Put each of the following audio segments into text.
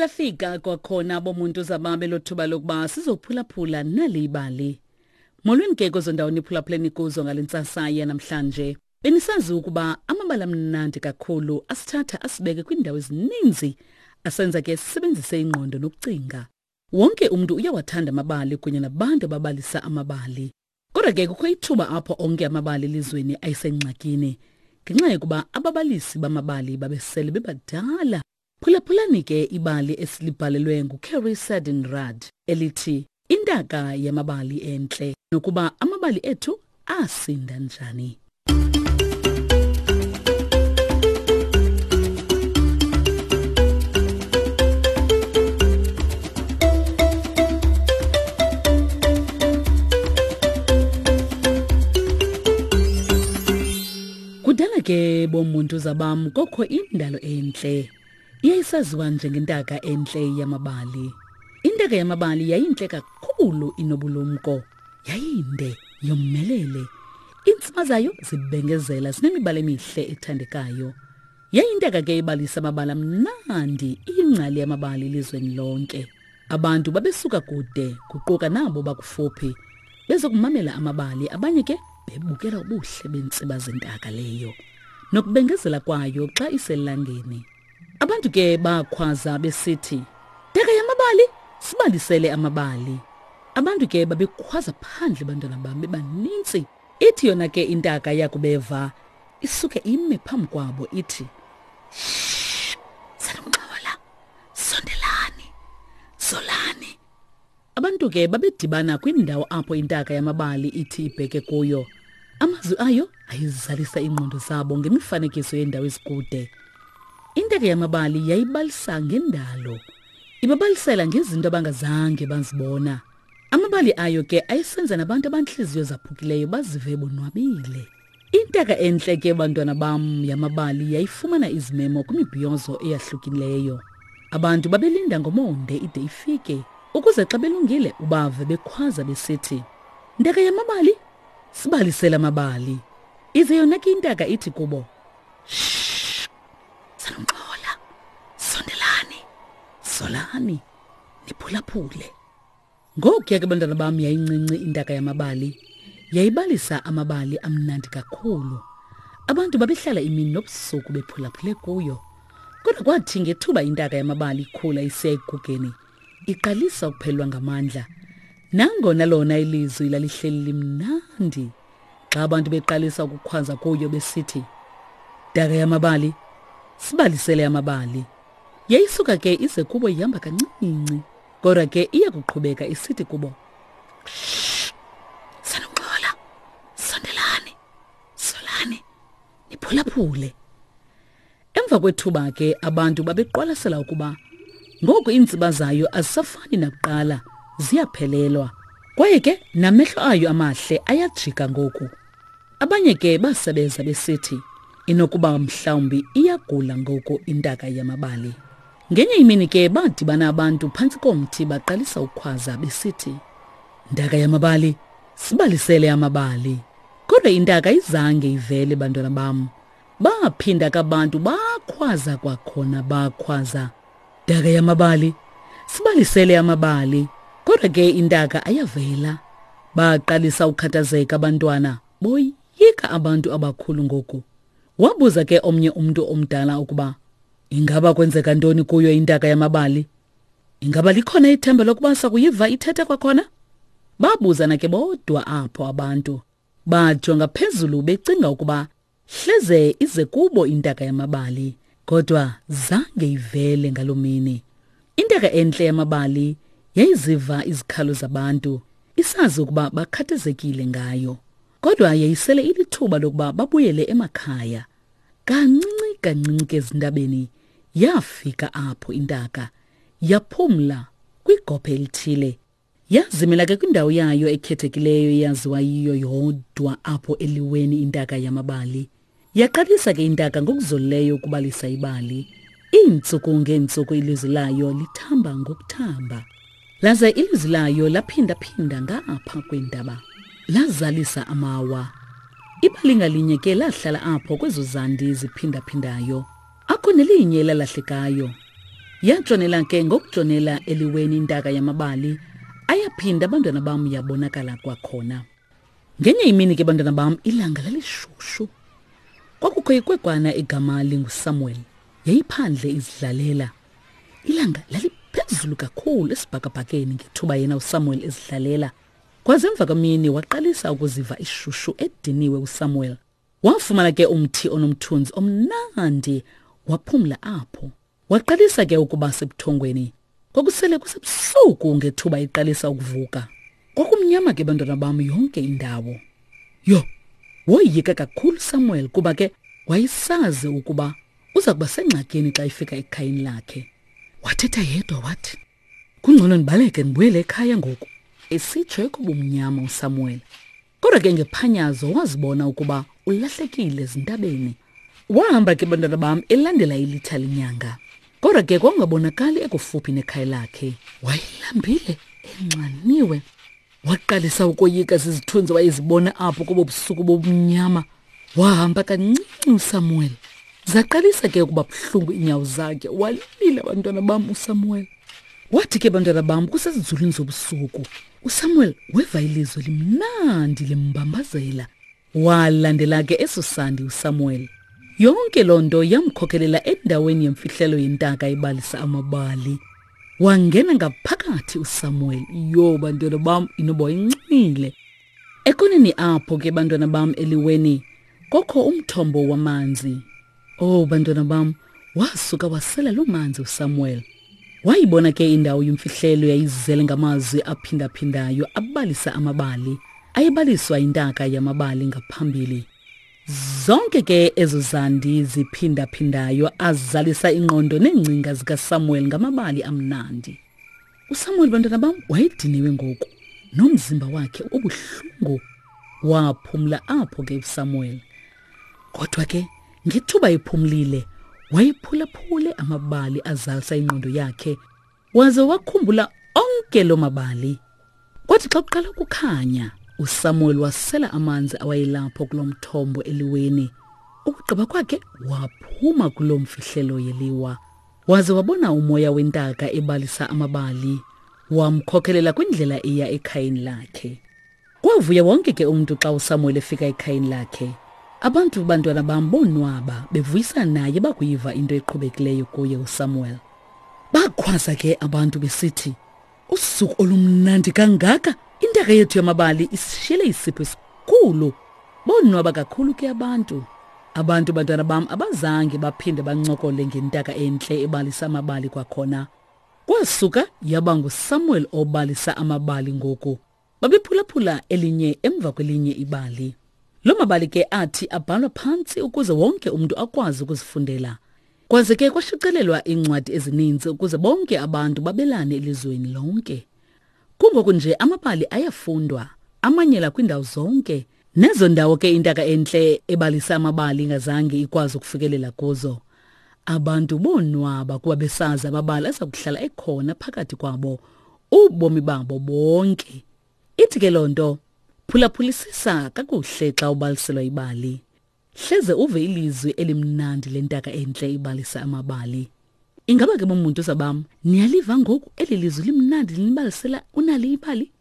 lafika kwakhona bomuntu zababe lothuba lokuba sizophulaphula nali ibali. Molweni ke kwezo ndawo niphulaphuleni kuzo ngale ntsasa yanamhlanje. Benisazi ukuba amabali amnandi kakhulu asithatha asibeke kwiindawo ezininzi asenza ke sisebenzise ingqondo nokucinga. Wonke umntu uyawathanda amabali kunye nabantu ababalisa amabali. Kodwa ke kukho ithuba apho onke amabali elizweni ayisengxakini ngenxa yokuba ababalisi bamabali babesele bebadala. Phulaphulani ke ibali esilibhalelwe nguCarrie Sadin Rudd elithi Intaka yamabali entle nokuba amabali ethu asinda njani. Kudala ke bomuntu zabam kokho indalo entle. Yayisaziwa njengentaka entle yamabali. Intaka yamabali yayintle kakhulu inobulumko. Yayinde, yomelele. Iintsima zayo zibengezela zinemibala emihle ethandekayo. Yayintaka ke ibalisa amabali amnandi, iyingcali yamabali elizweni lonke. Abantu babesuka kude, kuquka nabo bakufuphi, bezokumamela amabali, abanye ke bebukela ubuhle beentsiba zentaka leyo nokubengezela kwayo xa iselangeni. Abantu ke bakhwaza besithi, Ntaka yamabali, sibalisele amabali. Abantu ke babekhwaza phandle bantwana bam bebaninzi. Ithi yona ke intaka yakubeva isuke ime phambi kwabo ithi, Shh, sanungxola, sondelani, zolani. Abantu ke babedibana kwindawo apho intaka yamabali ithi ibheke kuyo. Amazwi ayo ayizalisa iingqondo zabo ngemifanekiso yeendawo ezikude. Intaka yamabali yayibalisa ngendalo. Ibabalisela ngezinto abangazange bazibona. Amabali ayo ke ayesenza nabantu abantliziyo zaphukileyo bazive bonwabile. Intaka entle ke bantwana bam yamabali yayifumana izimemo kwimibhiyozo eyahlukileyo. Abantu babelinda ngomonde ide ifike ukuze xa belungile ubave bekhwaza besithi, Ntaka yamabali, sibalisele amabali. Ize yona ke intaka ithi kubo, Shh, sanungxola, sondelani, solani, niphulaphule. Ngokuya ke bantwana bam yayincinci intaka yamabali. Yayibalisa amabali amnandi kakhulu. Abantu babehlala imini nobusuku bephulaphule kuyo. Kodwa kwathi ngethuba intaka yamabali ikhula isiya ekugugeni, iqalisa ukuphelelwa ngamandla. Nangona lona ilizwi lalihleli limnandi, xa abantu beqalisa ukukhwaza kuyo besithi, Ntaka yamabali, sibalisele amabali. Yayisuka ke ize kubo ihamba kancinci. Kodwa ke iya kuqhubeka isithi kubo, Sanuxola, sondelani, solani, niphulaphule. Emva kwethuba ke abantu babeqwalasela ukuba ngoku iintsiba zayo azisafani nakuqala, ziyaphelelwa. Kwaye ke namehlo ayo amahle ayajika ngoku. Abanye ke basebeza besithi inokuba mhlawumbi iyagula ngoku intaka yamabali. Ngenye imini ke badibana abantu phantsi komthi baqalisa ukukhwaza besithi, Ntaka yamabali, sibalisele amabali. Kodwa intaka izange ivele bantwana bam. Baphinda kabantu bakhwaza kwakhona bakhwaza. Ntaka yamabali, sibalisele amabali. Kodwa ke intaka ayavela. Baqalisa ukukhathazeka abantwana, boyika abantu abakhulu ngoku. Wabuza ke omnye umntu omdala ukuba ingaba kwenzeka ntoni kuyo intaka yamabali. Ingaba likhona ithemba lokuba sakuyiva ithetha kwakhona? Babuzana ke bodwa apho abantu. Bajonga phezulu becinga ukuba Hleze ize kubo intaka yamabali, kodwa zange ivele ngaloo mini. Intaka entle yamabali yayiziva izikhalo zabantu, isazi ukuba bakhathazekile ngayo. Kodwa yayisele ilithuba lokuba babuyele emakhaya. Kancinci kancinci ke ezintabeni yafika apho intaka, yaphumla kwigophe elithile. Yazimela ke kwindawo yayo ekhethekileyo eyaziwa yiyo yodwa apho eliweni intaka yamabali. Yaqalisa ke intaka ngokuzolileyo ukubalisa ibali. Iintsuku ngeentsuku ilizwi layo lithamba ngokuthamba. Laze ilizwi layo laphinda-phinda ngapha kweentaba. Lazalisa amawa. Ibali ngalinye ke lahlala apho kwezo zandi ziphindaphindayo. Akho nelinye elalahlekayo. Yatshonela ke ngokutshonela eliweni intaka yamabali, ayaphinda abantwana bam yabonakala kwakhona. Ngenye imini ke bantwana bam ilanga lalishushu. Kwakukho ikwekwana igama linguSamuel. Yayiphandle izidlalela. Ilanga laliphezulu kakhulu esibhakabhakeni ngethuba yena uSamuel ezidlalela. Kwaze emva kwemini waqalisa ukuziva ishushu ediniwe uSamuel. Wafumana ke umthi onomthunzi omnandi waphumla apho. Waqalisa ke ukuba sebuthongweni. Kwakusele kusebusuku ngethuba iqalisa ukuvuka. Kwakumnyama ke bantwana bam yonke indawo. Yho, woyika kakhulu Samuel kuba ke wayesazi ukuba uza kuba sengxakini xa efika ekhayeni lakhe. Wathetha yedwa wathi, Kungcono ndibaleke ndibuyele ekhaya ngoku. Esitsho ekubumnyama uSamuel. Kodwa ke ngephanyazo wazibona ukuba ulahlekile ezintabeni. Wahamba ke bantwana bam elandela ilitha lenyanga. Kodwa ke kwakungabonakali ekufuphi nekhaya lakhe. Wayelambile, enxaniwe. Waqalisa ukoyika zizithunzi wayezibona apho kobo busuku bobumnyama. Wahamba kancinci uSamuel. Zaqalisa ke ukuba buhlungu iinyawo zakhe. Walila bantwana bam uSamuel. Wathi ke bantwana bam kusezinzulwini zobusuku uSamuel weva ilizwi limnandi limbambazela. Walandela ke eso sandi uSamuel. Yonke loo nto yamkhokelela endaweni yemfihlelo yentaka ebalisa amabali. Wangena ngaphakathi uSamuel. Yho bantwana bam inoba wayencumile. Ekoneni apho ke bantwana bam eliweni kokho umthombo wamanzi. Oh bantwana bam, wasuka wasela loo manzi uSamuel. Wayibona ke indawo yemfihlelo yayizele ngamazwi aphindaphindayo abalisa amabali. Ayebaliswa intaka yamabali ngaphambili. Zonke ke ezo zandi ziphindaphindayo azalisa ingqondo neengcinga zikaSamuel ngamabali amnandi. USamuel bantwana bam wayediniwe ngoku nomzimba wakhe ubuhlungu. Waphumla apho ke uSamuel. Kodwa ke ngethuba ephumlile wayephulaphule amabali azalisa ingqondo yakhe waze wakhumbula onke loo mabali. Kwathi xa kuqala ukukhanya uSamuel wasela amanzi awayelapho kulo mthombo eliweni. Ukugqiba kwakhe waphuma kuloo mfihlelo yeliwa. Waze wabona umoya wentaka ebalisa amabali, wamkhokelela kwindlela eya ekhayeni lakhe. Kwavuya wonke ke umntu xa uSamuel efika ekhayeni lakhe. Abantu bantwana bam bonwaba bevuyisana naye bakuyiva into eqhubekileyo kuye uSamuel. Bakhwaza ke abantu besithi, Usuku olumnandi kangaka! Intaka yethu yamabali isishiyele isipho esikhulu. Bonwaba kakhulu ke abantu. Abantu bantwana bam abazange baphinde bancokole ngentaka entle ebalisa amabali kwakhona. Kwasuka yaba nguSamuel obalisa amabali ngoku. Babephulaphula elinye emva kwelinye ibali. Loo mabali ke athi abhalwa phantsi ukuze wonke umntu akwazi ukuzifundela. Kwaze ke kwashicilelwa iincwadi ezininzi ukuze bonke abantu babelane elizweni lonke. Kungoku nje amabali ayafundwa, amanyela kwiindawo zonke. Nezo ndawo ke intaka entle ebalisa amabali ingazange ikwazi ukufikelela kuzo. Abantu bonwaba kuba besazi amabali aza kuhlala ekhona phakathi kwabo ubomi babo bonke. Ithi ke loo nto, phulaphulisisa kakuhle xa ubaliselwa ibali. Hleze uve ilizwi elimnandi lentaka entle ibalisa amabali. Ingaba ke bomuntu zabam, niyaliva ngoku eli lizwi limnandi linibalisela unali ibali?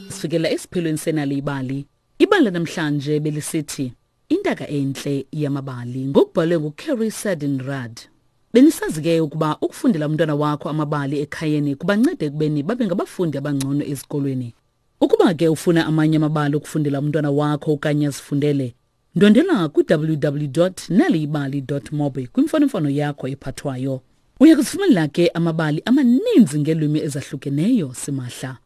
Sifikela esiphelweni senali ibali. Ibali lanamhlanje belisithi Intaka entle yamabali ngokubhalwe nguCarrie Sadin Rudd. Benisazi ke ukuba ukufundela umntwana wakho amabali ekhayeni kubanceda ekubeni babe ngabafundi abangcono ezikolweni. Ukuba ke ufuna amanye amabali okufundela umntwana wakho okanye azifundele, ndwendela kwi-www.naliyibali.mobi kwimfonomfono yakho ephathwayo. Uya kuzifumanela ke amabali amaninzi ngeelwimi ezahlukeneyo simahla.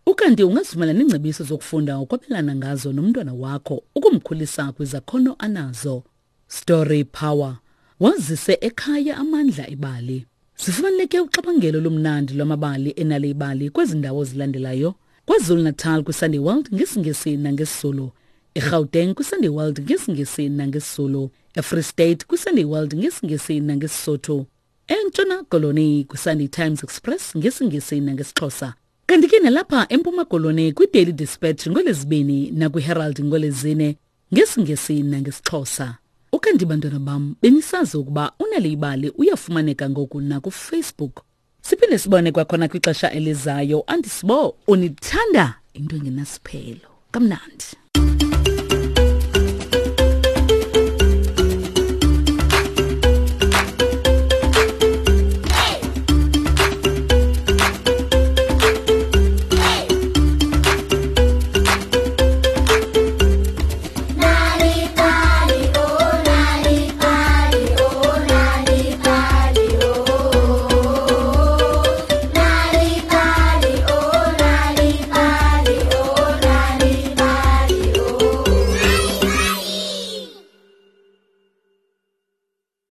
Ukanti ungazifumana neengcebiso zokufunda ukwabelana ngazo nomntwana wakho ukumkhulisa kwizakhono anazo. Story Power. Wazise ekhaya amandla ebali. Zifumaneke uxabangelo lomnandi lwamabali enale ibali kwezi ndawo zilandelayo. KwaZulu-Natal kwiSunday World ngesiNgesi nangesiZulu. EGauteng kwiSunday World ngesiNgesi nangesiZulu. EFree State kwiSunday World ngesiNgesi nangesiSotho. eNtshona Koloni kwiSunday Times Express ngesiNgesi nangesiXhosa. Kanti ke nalapha eMpuma Koloni kwiDaily Dispatch ngoLwezibini nakwiHerald ngoLwezine ngesiNgesi nangesiXhosa. Ukanti bantwana bam benisazi ukuba uNal'ibali uyafumaneka ngoku nakuFacebook. Siphinde sibone kwakhona kwixesha elizayo. Andisibo unithanda into engenasiphelo. Kamnandi.